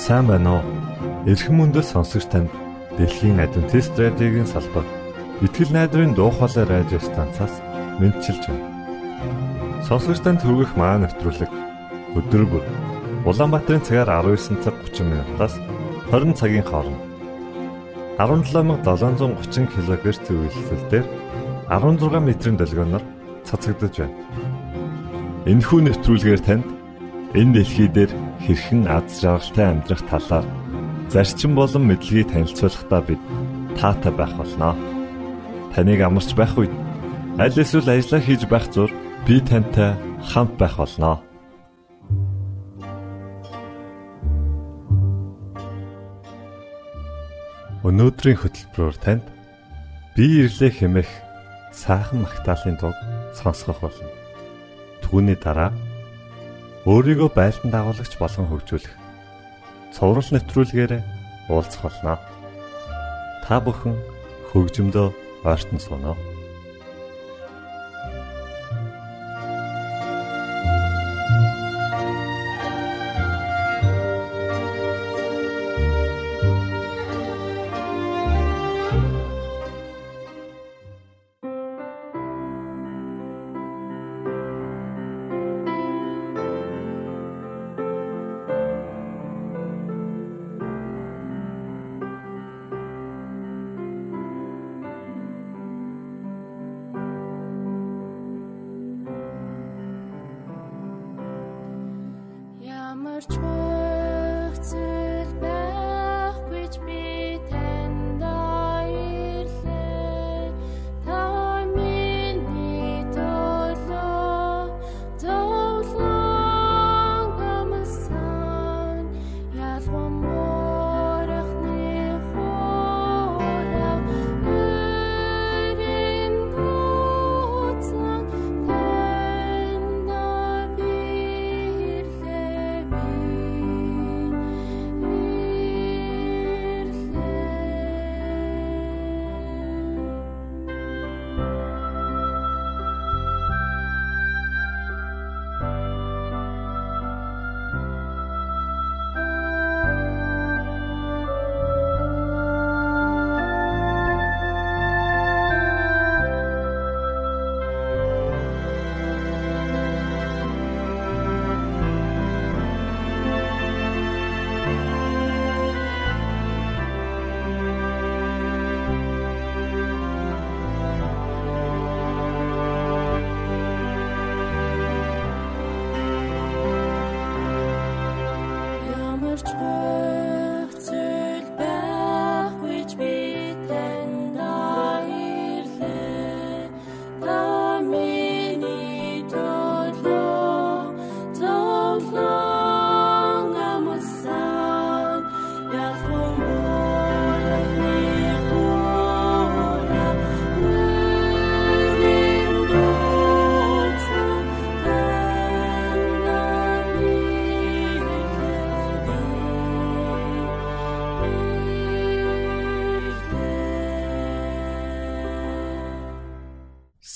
Сайн байна уу? Эрхэм мөндөд сонсогч танд Дэлхийн Адвентист радиогийн салбар Итгэл найдрын дуу хоолой радио станцаас мэдчилж байна. Сонсогч танд хүргэх маань нэвтрүүлэг өдөр бүр Улаанбаатарын цагаар 19 цаг 30 минутаас 20 цагийн хооронд 17730 кГц зөвлөлтөөр 16 метрийн долгионоор цацагдж байна. Энэхүү нэвтрүүлгээр танд энэ дэлхий дээр хэрхэн аз жаргалтай амьдрах талаар зарчим болон мэдлэгийг танилцуулахдаа бид таатай байх болно. Таныг амарч байх үед аль эсвэл ажиллаа хийж байх зур би тантай хамт байх болно. Өнөөдрийн хөтөлбөрөөр танд би ирлээ хэмээх сайхан магтаалын дуу сонсгох болно. Түүний дараа өөрийгөө байлдан дагуулагч болгон хөгжүүлэх цоврал нэвтрүүлгээр уулзах болно. Та бүхэн хөгжмөдөө ойртон сууно.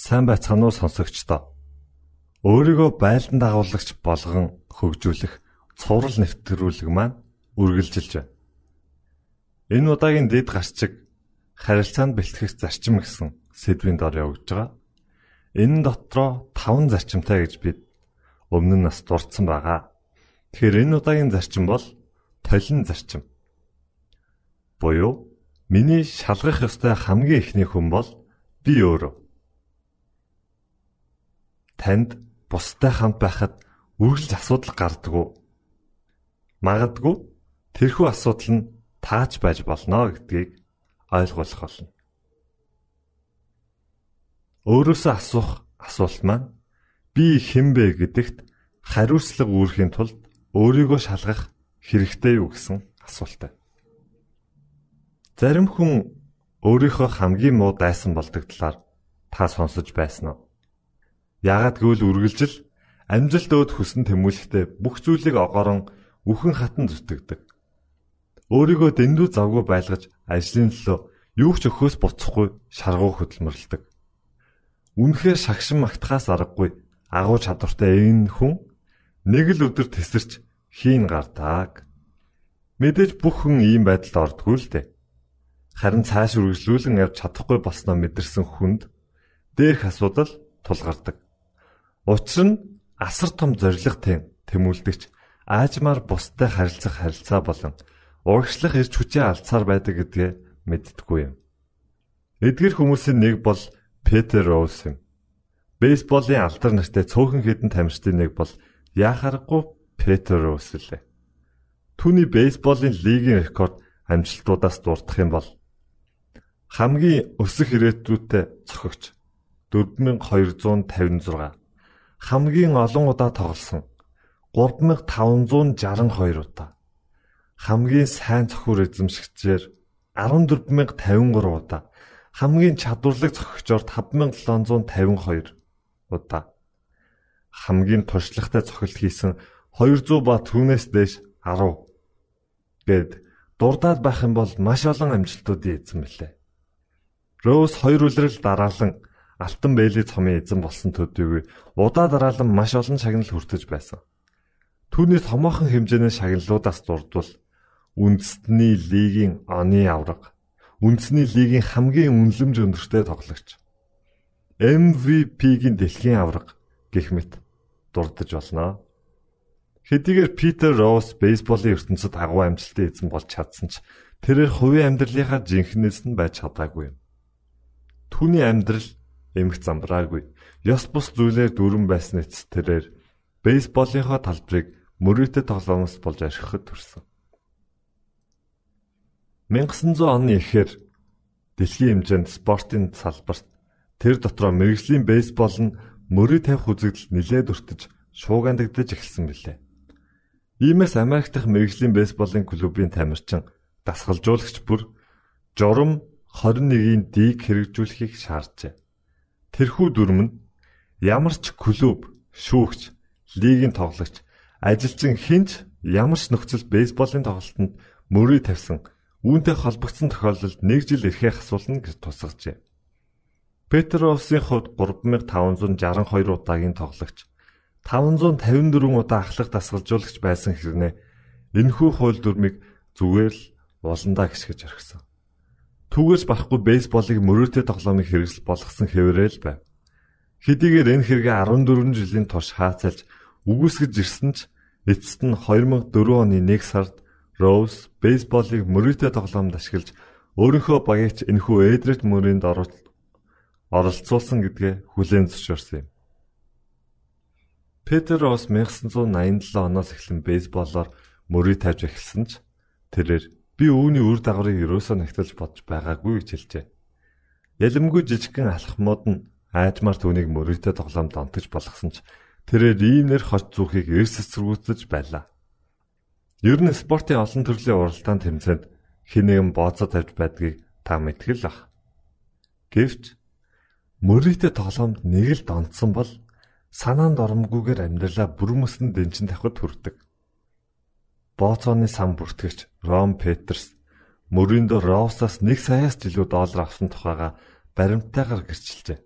Сайн байцгаана уу сонсогчдоо. Өөрийгөө байлдан дагуулагч болгон хөгжүүлэх цоврал нэвтрүүлэг маань үргэлжилж байна. Энэ удаагийн дэд гарчиг харилцаанд бэлтгэх зарчим гэсэн сэдвийн дор явж байгаа. Энэ дотроо 5 зарчимтай гэж бид өмнө нь бас дурдсан байгаа. Тэгэхээр энэ удаагийн зарчим бол толин зарчим. Буюу миний шалгах ёстой хамгийн ихний хүн бол би өөрөө. Танд бусдад хамт байхад үргэлж асуудал гардаггүй. Магадгүй тэрхүү асуудал нь тааж байж болно гэдгийг ойлгох болно. Өөрөөсөө асуух асуулт маань би хэн бэ гэдэгт хариуцлага үүрэхийн тулд өөрийгөө шалгах хэрэгтэй юу гэсэн асуултаа. Зарим хүн өөрийнхөө хамгийн муу дайсан болдог талаар та сонсож байсан уу? Яагаад гэвэл үргэлжил амжилт өөд хүсн тэмүүлэхдээ бүх зүйлийг огоорон үхэн хатан зүтгэдэг. Өөрийгөө дэндүү завгүй байлгаж ажлын төлөө юу ч өхөөс буцахгүй шаргуу хөдөлмөрлөдөг. Үнэхээр шагшин магтахаас аргагүй агуу чадвартай энэ хүн нэг л өдөр тесэрч хийн гардаг. Мэдээж бүх хүн ийм байдалд ордгүй л дээ. Харин цааш үргэлжлүүлэн явж чадахгүй болсноо мэдэрсэн хүнд дээрх асуудал тулгардаг. Учир нь асар том зоригтой тэмүүлдэгч аажмаар бусдад харилцах харилцаа болон урагшлах эрч хүчээ алдсаар байдаг гэдгээ мэддэггүй юм. Эдгээр хүмүүсийн нэг бол Петер Роуз юм. Бейсболын алдар нартай цөөхөн хэдэн тамирчдын нэг бол яхаарахгүй Петер Роуз лээ. Түүний бейсболын лигийн рекорд амжилтуудаас дурдах юм бол хамгийн өсөх ирээдүйтэй цохогч 4256, хамгийн олон удаа тоглосон 3562 удаа, хамгийн сайн цохиур эзэмшигчээр 14053 удаа, хамгийн чадварлаг цохигчоор 5752 удаа, хамгийн туршлагатай цохилт хийсэн 200 ба түүнээс дээш 10 гэд дурдаад байх юм бол маш олон амжилтуудын эзэн мэлээ. Роуз 2 үлрэл дараалан алтан бэйли цомын эзэн болсон төдийгүй удаа дараалан маш олон шагнал хүртэж байсан. Түүний томоохон хэмжээний шагналуудаас дурдвал үндэсний лигийн оны авраг, үндэсний лигийн хамгийн үнэлэмж өндөртэй тоглогч, MVP-гийн дэлхийн авраг гэх мэт дурдж болно. Хэдийгээр Петер Роуз бейсболын ертөнцид агуу амжилттай эзэн болж чадсан ч тэрээр хувийн амьдралынхаа жинхнээс нь байж чадаагүй юм. Түүний амьдрал эмх замбраагүй, ёс бус зүйлээр дүүрэн байсан эцэс тэрээр бейсболынхаа талбарыг мөрөөдө тоглоомоос болж архихад төрсөн. 1900 оны эхээр дэлхийн хэмжээнд спортын салбарт тэр дотроо мэргэжлийн бейсбол нь мөрөө тавих үзэгдэл нэлээд өртөж шуугиандагдаж эхэлсэн билээ. Иймээс Америк дахь мэргэжлийн бейсболын клубын тамирчин дасгалжуулагч бүр журам 21-ийн дийг хэрэгжүүлэхийг шаарджээ. Тэрхүү дүрм нь ямар ч клуб, шүүгч, лигийн тоглогч, ажилчин хинч ямар ч нөхцөл бейсболын тоглолтод мөрөө тавьсан үүнтэй холбогдсон тохиолдолд 1 жил эрхээ асуулна гэж тусгажээ. Петер Роусын хувьд 3562 удаагийн тоглогч, 554 удаа ахлах дасгалжуулагч байсан хэрнээ энэхүү хууль дүрмийг зүгээр л уландаа гисгэж орхисон. Түүгээс барахгүй бейсболыг мөрөөдө тоглоомыг хэрэгсэл болгосон хэвээрэл байв. Хэдийгээр энэ хэрэгээ 14 жилийн турш хаацалж үгүйсгэж ирсэн ч эцэст нь 2004 оны 1 сард Роуз бейсболыг мөрөөдө тоглоомд ашиглаж өөрийнхөө багийч энэхүү эдрет мөрөнд оролцуулсан гэдгээ хүлээн зөвшөөрсөн юм. Петер Роуз 1987 оноос эхлэн бейсболоор мөрөө тавьж эхэлсэн ч тэрээр би үүний үр дагаврыг ерөөсөө нягтлж бодож байгаагүй гэж хэлжээ. Ялэмгүй жижигхэн алхмууд нь аажмаар түүнийг мөрөөдө тоглоомд онтож болгосон ч тэрээр иймнэр хож зүрхийг эрс эсэргүүцэж байлаа. Ер нь спортын олон төрлийн уралдаан тэмцээнд хэн нэгэн бооцоо тавьж байдгийг та мэдгэл ах. Гэвч мөрөөдө тоглоомд нэг л донтсон бол санаанд оромгүйгээр амьдралаа бүрмөсөн дэнчин тавихад хүрдэг. Бооцооны сан бүртгэгч Рон Петерс мөрөндө Роусаас 1 саяас жилүү доллар авсан тухайга баримттайгаар гэрчилжээ.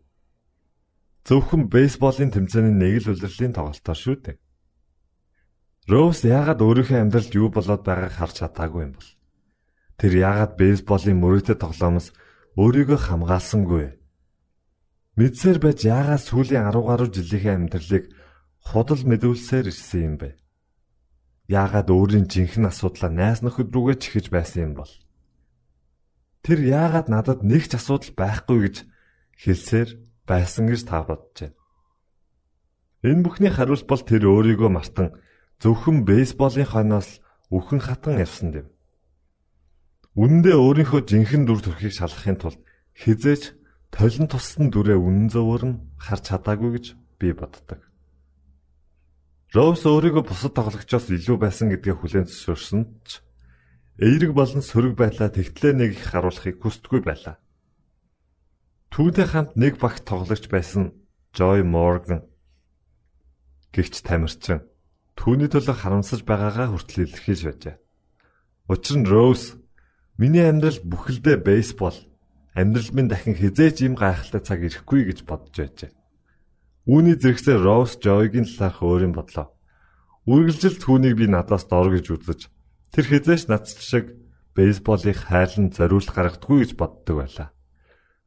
Зөвхөн бейсболын тэмцээний нэг л улирлын тоглолтоор шүү дээ. Роуз яагаад өөрийнхөө амьдралд юу болоод байгааг харж чадаагүй юм бол? Тэр яагаад бейсболын мөрөөдө тоглоомоос өөрийгөө хамгаалсангүй? Мэдсээр байж яагаад сүүлийн 10 гаруй жилийнхээ амьдралыг худал мэдүүлсээр ирсэн юм бэ? Яагаад өөрийн жинхэнэ асуудлаа найз нөхөд рүүгээ чихэж байсан юм бол? Тэр яагаад надад нэг ч асуудал байхгүй гэж хэлсээр байсан гэж та бодож байна. Энэ бүхний хариулт бол тэр өөрийгөө мартан зөвхөн бейсболын хойноос үхэн хатан явсан юм. Үнэндээ өөрийнхөө жинхэнэ дүр төрхийг шалгахын тулд хизээч толин туссан дүрээ үнэн зөвөр нь харж чадаагүй гэж би боддог. Роуз өөрийгөө бусад тоглогчоос илүү байсан гэдгээ хүлээн зөвшөөрсөн ч эерэг болон сөрөг байдлаа тэгтлээ нэг их харуулахыг хүсдэггүй байлаа. Түүнтэй хамт нэг багт тоглогч байсан Joy Morgan гэгч тамирчин түүний төлөө харамсаж байгаагаа хүртэл илэрхийлж байжээ. Учир нь Роуз миний амьдрал бүхэлдээ бейсбол, амьдрал минь дахин хизээч ийм гайхалтай цаг ирэхгүй гэж бодож байжээ. Үүний зэрэгсээ Роуз Joy-гийн талаарх өөрийн бодлоо. Үргэлжил түүнийг би надаас дор гэж үзэж, Тэр хизээш нац шиг бейсболыг хайлан зориулт гаргадаггүй гэж боддог байлаа.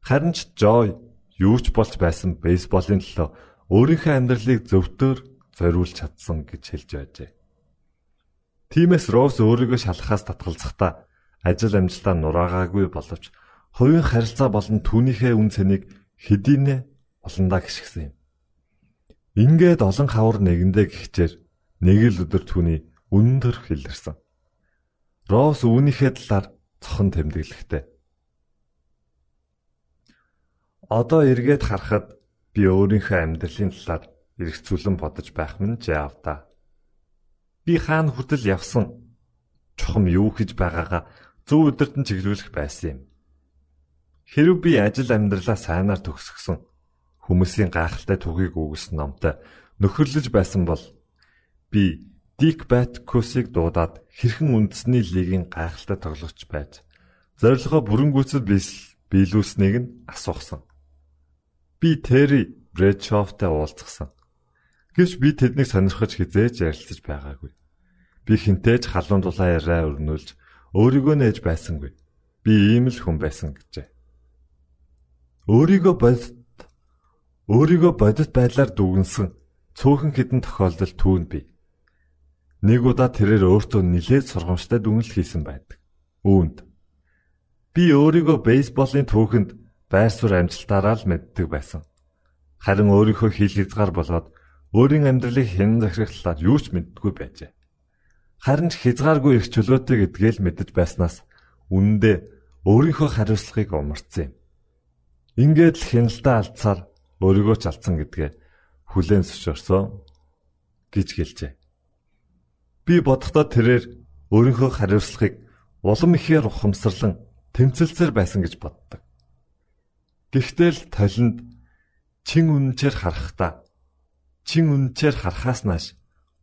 Харин ч Жой юу ч болж байсан бейсболын төлөө өөрийнхөө амьдралыг зөвтөөр зориулж чадсан гэж хэлж байжээ. Тиймээс Росс өөрийгөө шалахаас татгалзахдаа ажил амжилтаа нураагаагүй боловч хувийн харилцаа болон түүнийхээ үн цэнийг хэдийнэ олондоо гიშгсэн юм. Ингээд олон хавар нэгэндээ гихчээр нэг л өдөр түүний өндөр хэлэрсэн. Росс үүнийхээ талаар цохон тэмдэглэхтэй. Одоо эргээд харахад би өөрийнхөө амьдралын талаар эргцүүлэн бодож байх минь жаавда. Би хаана хүртэл явсан чухам юу хийж байгаагаа зөв өдөрт нь чиглүүлэх байсан юм. Хэрв би ажил амьдралаа сайнаар төгсгсөн хүмүүсийн гайхалтай түүхийг өгсөн номтой нөхөрлөж байсан бол би Дик Баткусыг дуудаад хэрхэн үндэсний лигийн гайхалтай тоглогч байж зорилгоо бүрэн гүйцэд биелүүлснийг нь асуухсан. Би Терри Брэдшофтой уулзсан. Гэвч би тэднийг сонирхож хизээж ярилцаж байгаагүй. Би хинтээж халуун дулаан яриа өрнүүлж өөрийгөө нээж байсангүй. Би ийм л хүн байсан гэжээ. Өөрийгөө бодит байдлаар дүгнсэн цөөхөн хэдэн тохиолдол түүнд бий. Нэг удаа тэрээр өөртөө нэлээд сургамжтай дүгнэлт хийсэн байдаг. Үүнд би өөрийгөө бейсболын түүхэнд байр суурь амжилтаараа л мэддэг байсан. Харин өөрийнхөө хил хязгаар болоод өөрийн амьдралыг хэн захирах талаар юу ч мэддэггүй байжээ. Харин ч хязгааргүй их чөлөөтэй гэдгээ л мэдэж байснаас үнэндээ өөрийнхөө хариуцлагыг умарцсан юм. Ингээд л хяналтаа алдсаар өөрийгөө ч алдсан гэдгээ хүлээн зөвшөөрсөн гэж гэлжээ. Би бодохдоо тэрээр өөрийнхөө хариуцлагыг улам ихээр ухамсарлан тэмцэлцээр байсан гэж боддог. Гэхдээ л толинд чин үнэнчээр харахаас нааш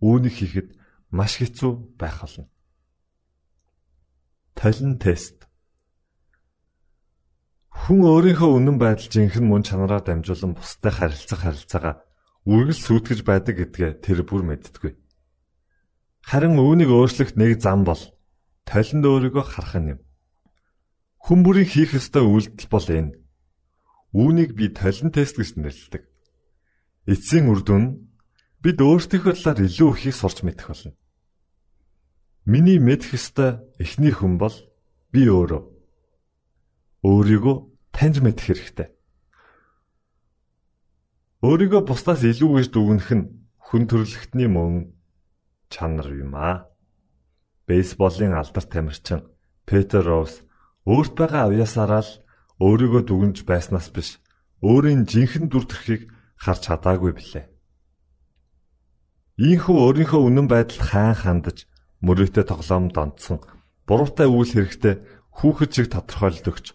үүнийг хийхэд маш хэцүү байх болно. Толин тест. Хүн өөрийнхөө үнэн байдал жинхэнэ мөн чанараар дамжуулан бусдад харилцаагаа үргэлж сүйтгэж байдаг гэдгээ тэр бүр мэддэггүй. Харин үүнийг өөрчлөх нэг зам бол толинд өөрийгөө харах юм. Хүн бүрийн хийх ёстой үйлдэл бол энэ. Үүнийг би толин тест гэж нэрлэдэг. Эцсийн үр дүн нь бид өөрсдийнхөө талаар илүү ихийг сурч мэдэх болно. Миний мэдэх ёстой эхний хүн бол би өөрөө. Өөрийгөө таньж мэдэх хэрэгтэй. Өөрийгөө бусдаас илүү гэж дүгнэх нь хүн төрөлхтний мөн чанар юм аа. Бейсболын алдарт тамирчин Петер Росс өөрт байгаа авьяасаараа л өөрийгөө дүгнж байснаас биш, өөрийн жинхэнэ дүр төрхийг харж чадаагүй билээ. Ийхүү өөрийнхөө үнэн байдалд хаан хандаж, мөрөөдөө тоглоомд онцсон, буруутай үйл хэрэгтээ хүүхэд шиг тодорхойлолт өгч,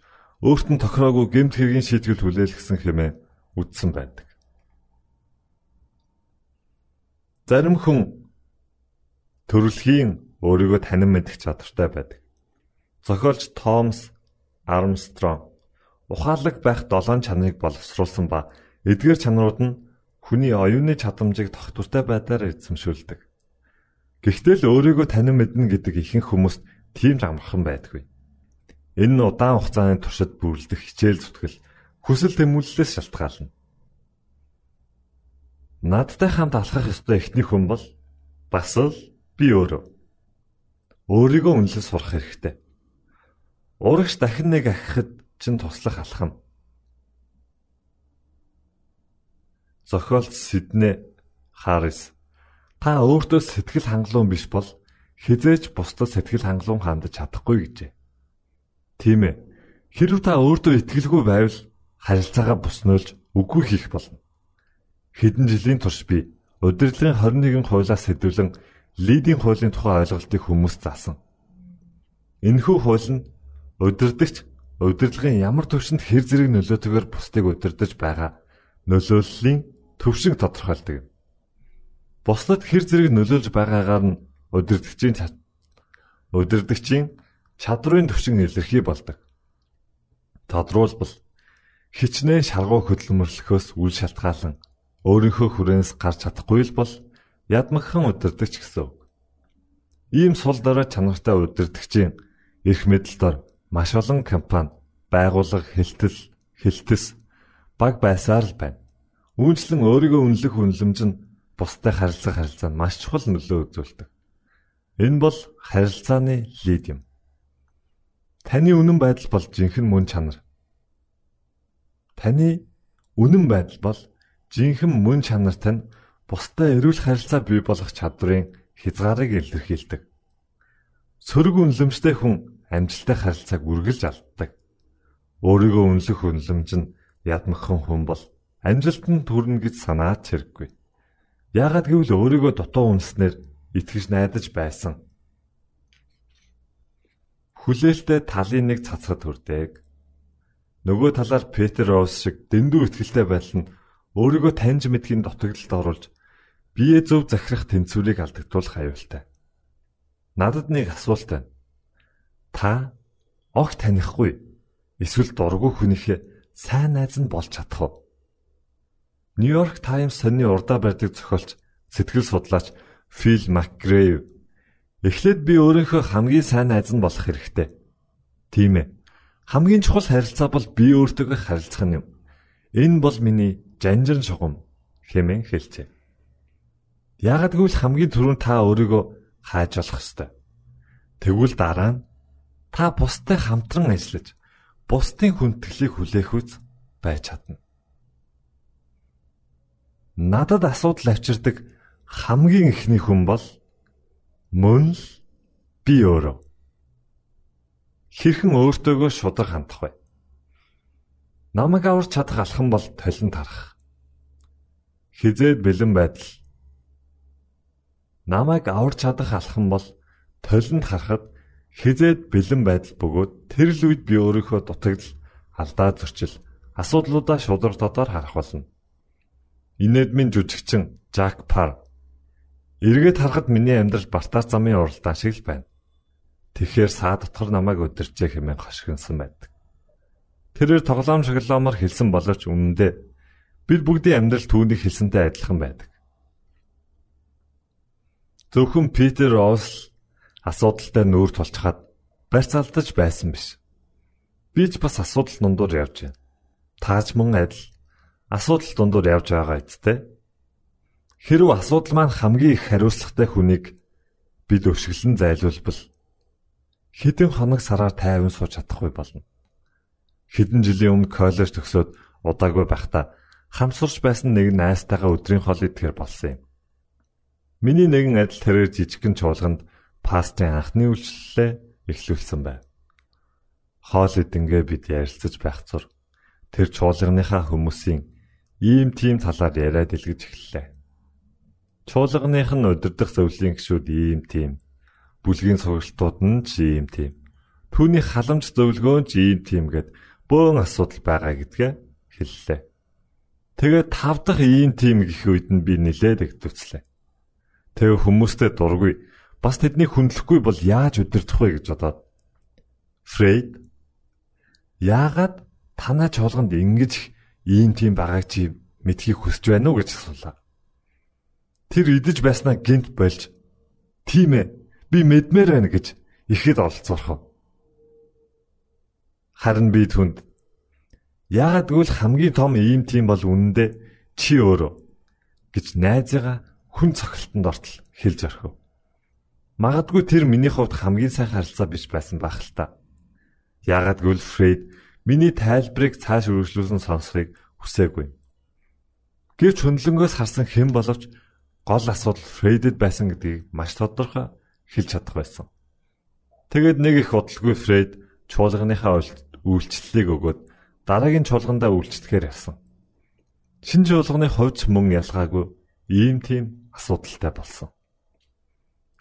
өөрт нь тохироогүй гэмт хэргийн шийтгэл хүлээлгэсэн хэмээн үздсэн байдаг. Зарим хүн төрөлхийн өөрийгөө танин мэдэх чадвартай байдаг. Зохиолч Томас Армстронг ухаалаг байх 7 чанарыг боловсруулсан ба эдгээр чанарууд нь хүний оюуны чадамжийг тогтвортой байдлаар эзэмшүүлдэг. Гэхдээ л өөрийгөө танин мэднэ гэдэг ихэнх хүмүүст тийм ч амархан байдаггүй. Энэ нь удаан хугацааны туршид бүрлдэх хичээл зүтгэл, хүсэл тэмүүллээс шалтгаална. Надтай хамт алхах ёстой эхний хүн бол бас л би өөрөө. Өөрийгөө үнэлж сурах хэрэгтэй. Урагш дахин нэг ахихад чинь туслах алхам. Зохиолч Сидней Харрис та өөртөө сэтгэл хангалуун биш бол хизээч бусдад сэтгэл хангалуун хандаж чадахгүй гэжээ. Тийм ээ. Хэрв та өөртөө итгэлгүй байвал харилцаагаа буснуулж үгүй хийх болно. Хэдэн жилийн турш би удирдлагын 21 хуулиас сэдвлэн лидийн хуулийн тухай ойлголтыг хүмүүст заасан. Энэхүү хууль нь удирдагч удирдлагын ямар төвшөнд хэр зэрэг нөлөөтэйгээр бусдыг удирдах байгаа нөлөөллийн төвшинг тодорхойлдог юм. Бусдад хэр зэрэг нөлөөлж байгаагаар нь удирдагчийн чадрын төвшин илэрхий болдог. Тодруулбал хичнээн шаргуу хөдөлмөрлөхөөс үл шалтгаалan өөрийнхөө хүрээнээс гарч чадахгүй л бол ядмагхан удирдагч гэсэн үг. Ийм сул дорой чанартай удирдагчийн эрх мэдэлд маш олон компани, байгууллага, хэлтэс баг байсаар л байна. Үүнчлэн өөрийгөө үнэлэх үнэлэмж нь бусдад харилцаанд маш чухал нөлөө үзүүлдэг. Энэ бол харилцааны лид юм. Таны үнэн байдал бол жинхэнэ мөн чанар. Таны үнэн байдал бол жинхэнэ мөн чанарт нь бусдад эрүүл харилцаа бий болгох чадварын хязгаарыг илэрхийлдэг. Сөрөг үнэлэмжтэй хүн амжилттай харилцааг үргэлж алддаг. Өөрийгөө үнэлэх үнэлэмж нь ядмагхан хүн бол амжилтанд хүрнэ гэж санаад хэрэггүй. Яагаад гэвэл өөрийгөө дутуу үнэлснээр итгэж найдаж байсан. Хүлээлттэй талын нэг цацхад хүрдэг. Нөгөө талаар Петр Роуз шиг дэндүү итгэлтэй байдал нь өөрийгөө таньж мэдхийн дутагдлалд оруулж бие зөв захирах тэнцвэрийг алдагдуулах аюултай. Надад нэг асуулт байна. Та огт танихгүй эсвэл дургүй хүнийхээ сайн найз нь болж чадах уу? Нью-Йорк Таймс сонины урдаа барьдаг зохиолч, сэтгэл судлаач Фил Макгрейв эхлээд би өөрийнхөө хамгийн сайн найз нь болох хэрэгтэй. Тийм ээ. Хамгийн чухал харилцаа бол би өөртөөгөө харилцах юм. Энэ бол миний жанжин шугам хэмээн хэлжээ. Яагад гэвэл хамгийн түрүүнд та өөрийгөө хааж болох ёстой. Тэгвэл дараа нь та бусдад хамтран ажиллаж, бусдын хүндэтгэлийг хүлээх үз байж чадна. Надад асуудал авчирдаг хамгийн ихний хүн бол мөн л би өөрөө. Хэрхэн өөртөөгөө шударга хандах вэ? Намайг аварч чадах алхам бол толинд харах. Хизээд бэлэн байдал. Намайг аварч чадах алхам бол толинд харахад хизээд бэлэн байдал бөгөөд тэр л үед би өөрийнхөө дутагдал, алдаа зөрчил, асуудлуудаа шударга дотор харах болно. Инэдмийн жүжигчин Жак Пар эргээд харахад миний амьдрал бартаа замын уралдаан шиг л байна. Тэгэхээр саа дотор намайг өдөрчээ хэмээн хошигнсан байдаг. Тэрээр тоглоом шоглоомор хэлсэн боловч үнэндээ бид бүгдийн амьдрал түүний хэлсэнтэй адилхан байдаг. Зөвхөн Питер Роуз асуудалтай нүүр тулчхад барьц алдаж байсан биш. Би ч бас асуудал дундуур явж байна. Тааж мөн адил асуудал дундуур явж байгаа эцтэй. Хэрв асуудал маань хамгийн их хариуцлагатай хүнийг бид өшгөлн зайлуулбал хэдэн хоног сараар тайван сууж чадахгүй болно. Хэдэн жилийн өмнө коллеж төгсөөд удаагүй байхдаа хамсурч байсан нэг найзтайгаа өдрийн хоол идэхээр болсон юм. Миний нэгэн адил тэрээр жижигхэн чуулганд пастрын анхны үйлчлэлээ эхлүүлсэн байв. Хоол идэнгээ бид ярилцаж байх зур тэр чуулганыхаа хүмүүсийн ийм тийм талаар яриад илгэж эхэллээ. Чуулганых нь удирдах зөвлөлийн гишүүд ийм тийм, бүлгийн сургалтууд нь ч ийм тийм, түүний халамж зөвлөгөө нь ч ийм тийм гэд бөөн асуудал байгаа гэдгээ хэллээ. Тэгээд 5 дахь ийм тийм гэх үед нь би нилээд эгдвцлээ. Тэгээ хүмүүстэй дургүй, бас тэднийг хүндлэхгүй бол яаж удирдах вэ гэж бодоод Фрейд яагаад танай чуулганд ингэж ийм тийм байгааг чи мэдхийг хүсэж байна уу гэж асуулаа. Тэр идэж байснаа гинт болж тийм ээ би мэдмээр байна гэж ихэд олцоорхов. Харин би түнд яагаад гэвэл хамгийн том ийм тийм бол үнэндээ чи өөрөө гэж найзыгаа хүн цохилтонд ортол хэлж орхив. Магадгүй тэр миний хувьд хамгийн сайн харилцаа биш байсан байх л та. Яагаад гэвэл Фрейд миний тайлбарыг цааш үргэлжлүүлэн сонсохыг хүсээгүй. Гэвч хөндлөнгөөс харсан хэн боловч гол асуудал Фрейдэд байсан гэдгийг маш тодорхой хэлж чадах байсан. Тэгээд нэг их удалгүй Фрейд чуулганыхаа үйлчлэлийг өгөөд дараагийн чуулгандаа үйлчлэхээр явсан. Шинэ чуулганы хувьд мөн ялгаагүй ийм тийм асуудалтай болсон.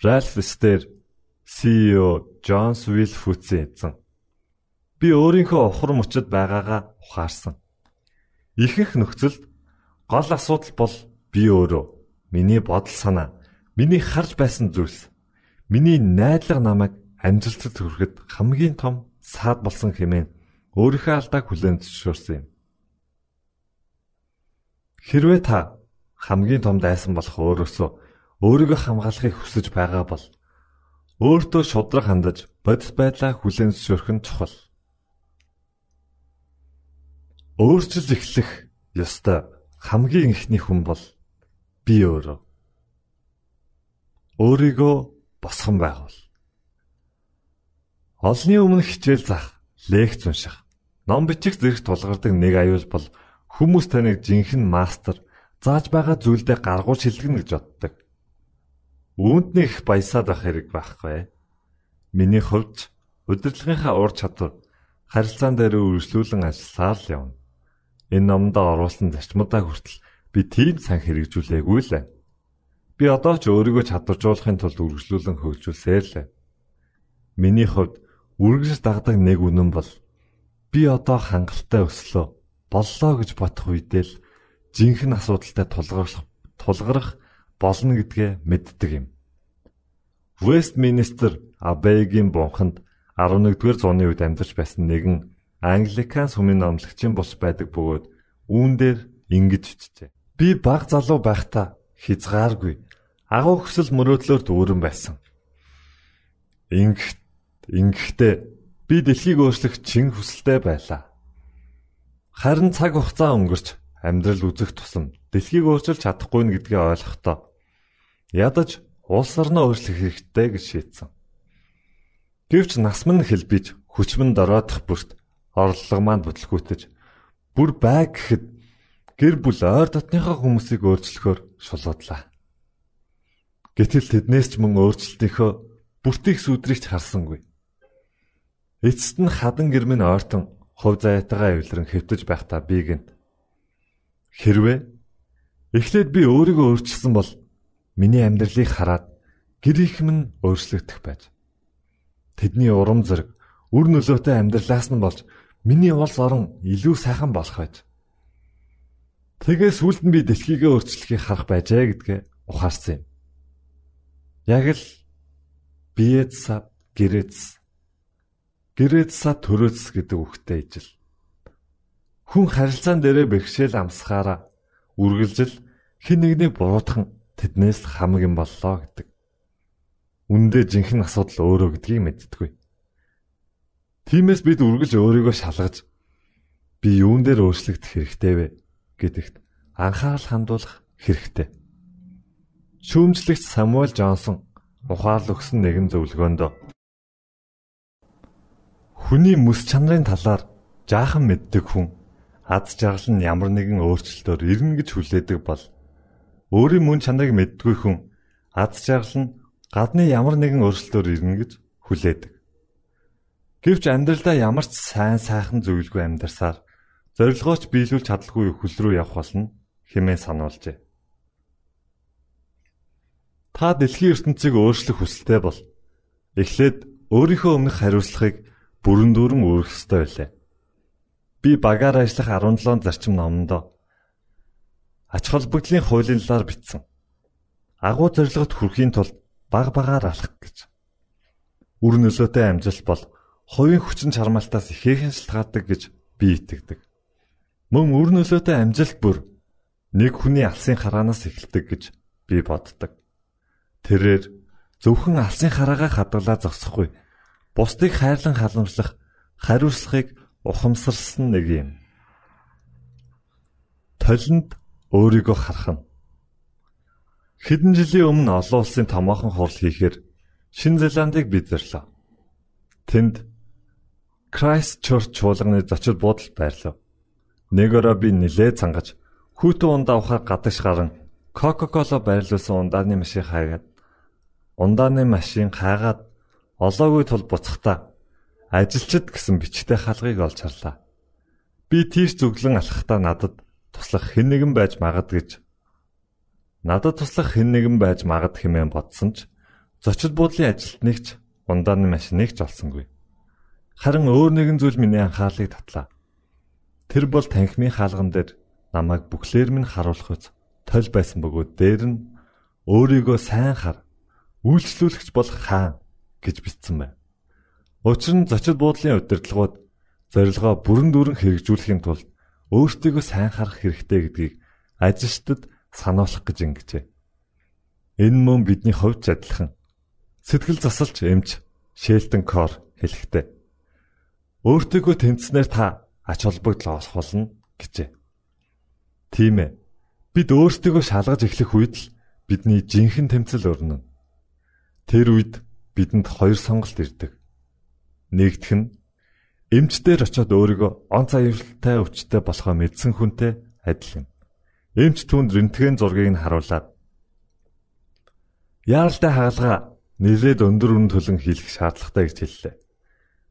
Ральф Стер CEO Джонс Вилфутсийн эзэн би өөрийнхөө ухар мөчөд байгаагаа ухаарсан. Ихэнх нөхцөлд гол асуудал бол би өөрөө, миний бодол санаа, миний харж байсан зүйлс, миний найдлага намайг амжилтад хүрэхэд хамгийн том саад болсон хэмээн өөрийнхөө алдааг хүлээн зөвшөөрсөн юм. Хэрвээ та хамгийн том дайсан болох өөрөөсөө өөрийгөө хамгаалахыг хүсэж байгаа бол Өөртөө шудраг хандаж бодит байдлаа хүлээн зөвшөөрөх нь чухал. Өөрчлөл эхлэх ёстой хамгийн эхний хүн бол би өөрөө. Өөрийгөө босгон байгуул. Олны өмнө хичээл заах, лекц унших, ном бичих зэрэг тулгардаг нэг аюул бол хүмүүс таныг жинхэнэ мастер, зааж байгаа зүйлдээ гаргуул шилжигнэ гэж боддог. Үүнд нэг их баясаад байх хэрэг байхгүй. Миний хувьд удирдлагынхаа ур чадвар харилцаан дээр үргэлжлүүлэн ажилласаар л явна. Энэ номдоо оруулсан зарчмуудаа хүртэл би тийм сан хэрэгжүүлээгүй л байна. Би одоо ч өөрийгөө чадваржуулахын тулд үргэлжлүүлэн хөгжүүлсээр л байна. Миний хувьд үргэлж дагдаг нэг үнэн бол би одоо хангалттай өслөө боллоо гэж бодох үедээ л жинхэнэ асуудалтай тулгарх болно гэдгээ мэддэг юм. Вестминстер Аббейгийн бунханд 11-р зууны үед амьдарч байсан нэгэн Англикан сүмийн номлогчийн бус байдаг бөгөөд үүн дээр ингэж бичжээ. Би баг залуу байхдаа хязгааргүй агуу хүсэл мөрөөдлөөр дүүрэн байсан. Ингэхдээ би дэлхийг өөрчлөх чин хүсэлтэй байлаа. Харин цаг хугацаа өнгөрч амьдрал үзэх тусам дэлхийг өөрчилж чадахгүй нь гэдгийг ойлгохдоо ядаж улс орноо өөрчлөх хэрэгтэй гэж шийдсэн. Гэвч нас минь хэлбиж хүч минь дороодох бүрт орлого маань бүтлгүүтэж бүр бай гэхэд гэр бүл ойр дотныхоо хүмүүсийг өөрчлөхөөр шулуудлаа. Гэтэл тэднээс ч мөн өөрчлөлтийнхөө бүртийг сүдрийгч харсангүй. Эцэст нь хадан гэр минь ойртон хувь заяатайгаа эвлэрэн хэвтэж байхдаа би гэнт. Хэрвээ эхлээд би өөрийгөө өөрчилсөн бол миний амьдралыг хараад гэр их минь өөрчлөгдөх байж. Тэдний урам зориг, үр нөлөөтэй амьдралаас нь болж миний улс орон илүү сайхан болох байж. Тэгээс сүүлд нь би дэлхийгээ өөрчлөхийг харах байжээ гэдгээ ухаарсан юм. Яг л биэдсад гэрэдсад төрөөс гэдэг үгтэй ижил. Хүн харилцаан дээрээ бэрхшээл амсахаараа үргэлжил хэн нэгнийг буруутгах тэднээс хамаг юм боллоо гэдэг. Үндэ жинхэнэ асуудал өөрөө гэдгийг мэддэггүй. Тиймээс бид үргэлж өөрийгөө шалгаж би юун дээр өөрчлөгдөх хэрэгтэй вэ гэдэгт анхаарал хандуулах хэрэгтэй. Шүүмжлэгч Самуэль Джонсон ухаал өгсөн нэгэн зөвлөгөөнд хүний мэс чанарын талаар жаахан мэддэг хүн аз жаргал нь ямар нэгэн өөрчлөлтөөр ирнэ гэж хүлээдэг бол өөрийн мөн чанарыг мэддгүй хүн аз жаргал нь гадны ямар нэгэн өөрчлөлтөөр ирнэ гэж хүлээдэг. Гэвч амьдралдаа ямар ч сайн сайхан зүйлгүй амьдарсаар зорилгооч биелүүлж чадалгүй хөл рүү явах болно хэмээн сануулжээ. Та дэлхийн ертөнцийг өөрчлөх хүсэлтэй бол эхлээд өөрийнхөө өмнөх хариуцлагыг бүрэн дүүрэн өөрөх ёстой байлаа. Би багаар ажиллах 17 зарчим номондоо ач холбогдлын хуулийн талаар бичсэн. Агуу зорилгот хүрэхийн тулд багаар алхах гэж. Үр нөлөөтэй амжилт бол хувийн хүчин чармаалтаас ихээхэн шалтгаалдаг гэж би итгэдэг. Мөн үр нөлөөтэй амжилт бүр нэг хүний алсын хараанаас эхэлдэг гэж би боддог. Тэрээр зөвхөн алсын хараагаа хадгалаа зогсохгүй, бусдыг хайрлан халамжлах хариуцлагыг ухамсарлсан нэг юм. Толинд өөрийгөө харах нь. Хэдэн жилийн өмнө олон улсын томоохон хурал хийхээр Шинэ Зеландыг бид зарлаа. Тэнд Крайстчерч чуулганы зочид буудалд байрлав. Нэг өрөө би нилээ цангаж хүүтэн ундаа ухаар гадагш гарan Кока-кола байрлуулсан ундааны машин хаагаад олоогүй тул буцахтаа ажилчид гэсэн бичгтэй хаалгыг олж харлаа. Би тийш зүглэн алхахдаа надад туслах хэн нэгэн байж магад хэмээн бодсон ч зочид буудлын ажилтныг ч ундааны машиныг ч олсонгүй. Харин өөр нэгэн зүйл миний анхаарлыг татлаа. Тэр бол танхимын хаалган дээр намайг бүхлээр минь харуулах үз тол байсан бөгөөд дээр нь өөрийгөө сайн хар, үйлчлүүлэгч бол хаан гэж бичсэн байна. Учир нь зочид буудлын удирдлагууд зорилгоо бүрэн дүүрэн хэрэгжүүлэхийн тулд өөртөө сайн харах хэрэгтэй гэдгийг ажилчдад сануулах гэж ингэжээ. Энэ мөн бидний хувьд адилхан Сэтгэл засалч эмч Шелтон Кор хэлэхдээ өөртөөгөө тэмцснээр та ач холбогдол олох болно гэжээ. Тийм ээ. Бид өөрсдийгөө шалгаж эхлэх үед л бидний жинхэнэ тэмцэл өрнөн. Тэр үед бидэнд хоёр сонголт ирдэг. Нэгдүг нь эмч дээр очиод өөрийгөө онц аюултай өвчтөй болохоо мэдсэн хүнтэй адил юм. Эмч түүнд рентген зургийг нь харуулад яаралтай хаалга нэлээд өндөр үнэ төлөн хийх шаардлагатай гэж хэллээ.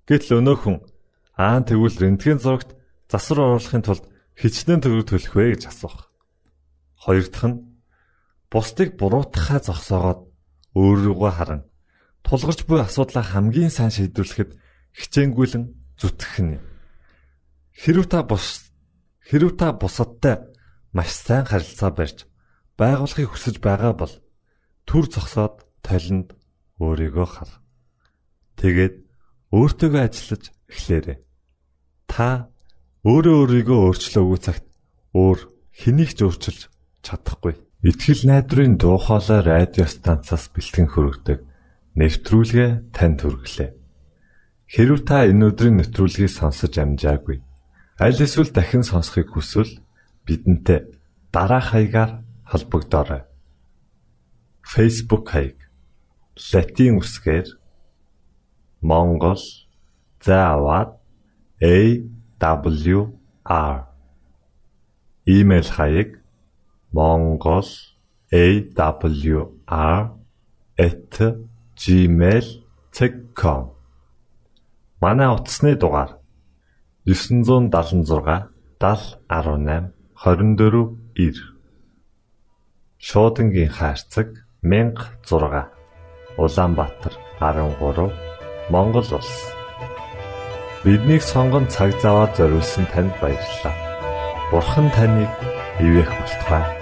Гэтэл өнөө хүн тэгвэл рентген зурагт засвар оруулахын тулд хичнээн төгрөг төлөх вэ гэж асуух. Хоёр дахь нь бусдыг буруутгахаа зогсоогоод өөрийгөө харан тулгарч буй асуудлаа хамгийн сайн шийдвэрлэхэд хичээнгүйлэн зүтгэх нь. Хэрв та бусадтай маш сайн харилцаа барьж байгуулахыг хүсэж байгаа бол түр зогсоод толинд өөрийгөө хар. Тэгээд өөртөөгөө ажиллаж эхлээрэй. Та өөрийгөө өөрчлөөгүй цагт өөр хэнийг ч өөрчилж чадахгүй. Итгэл найдварын дуу хоолой радио станцаас бэлтгэн хүргэдэг нэвтрүүлгээ танд хүргэлээ. Хэрв та энэ өдрийн нэвтрүүлгийг сонсож амжаагүй, аль эсвэл дахин сонсохыг хүсвэл бидэнтэй дараах хаягаар холбогдоорой. Facebook хаяг: Латин үсгээр Монгол заавад AWR. Имэйл хаяг: mongolawr@gmail.com. Манай утасны дугаар 976 7018 24 Шуудангийн хаяг 1006 Улаанбаатар 13 Монгол улс. Биднийг сонгон цаг зав аваад зориулсан танд баярлалаа. Бурхан таныг ивээх болтугай.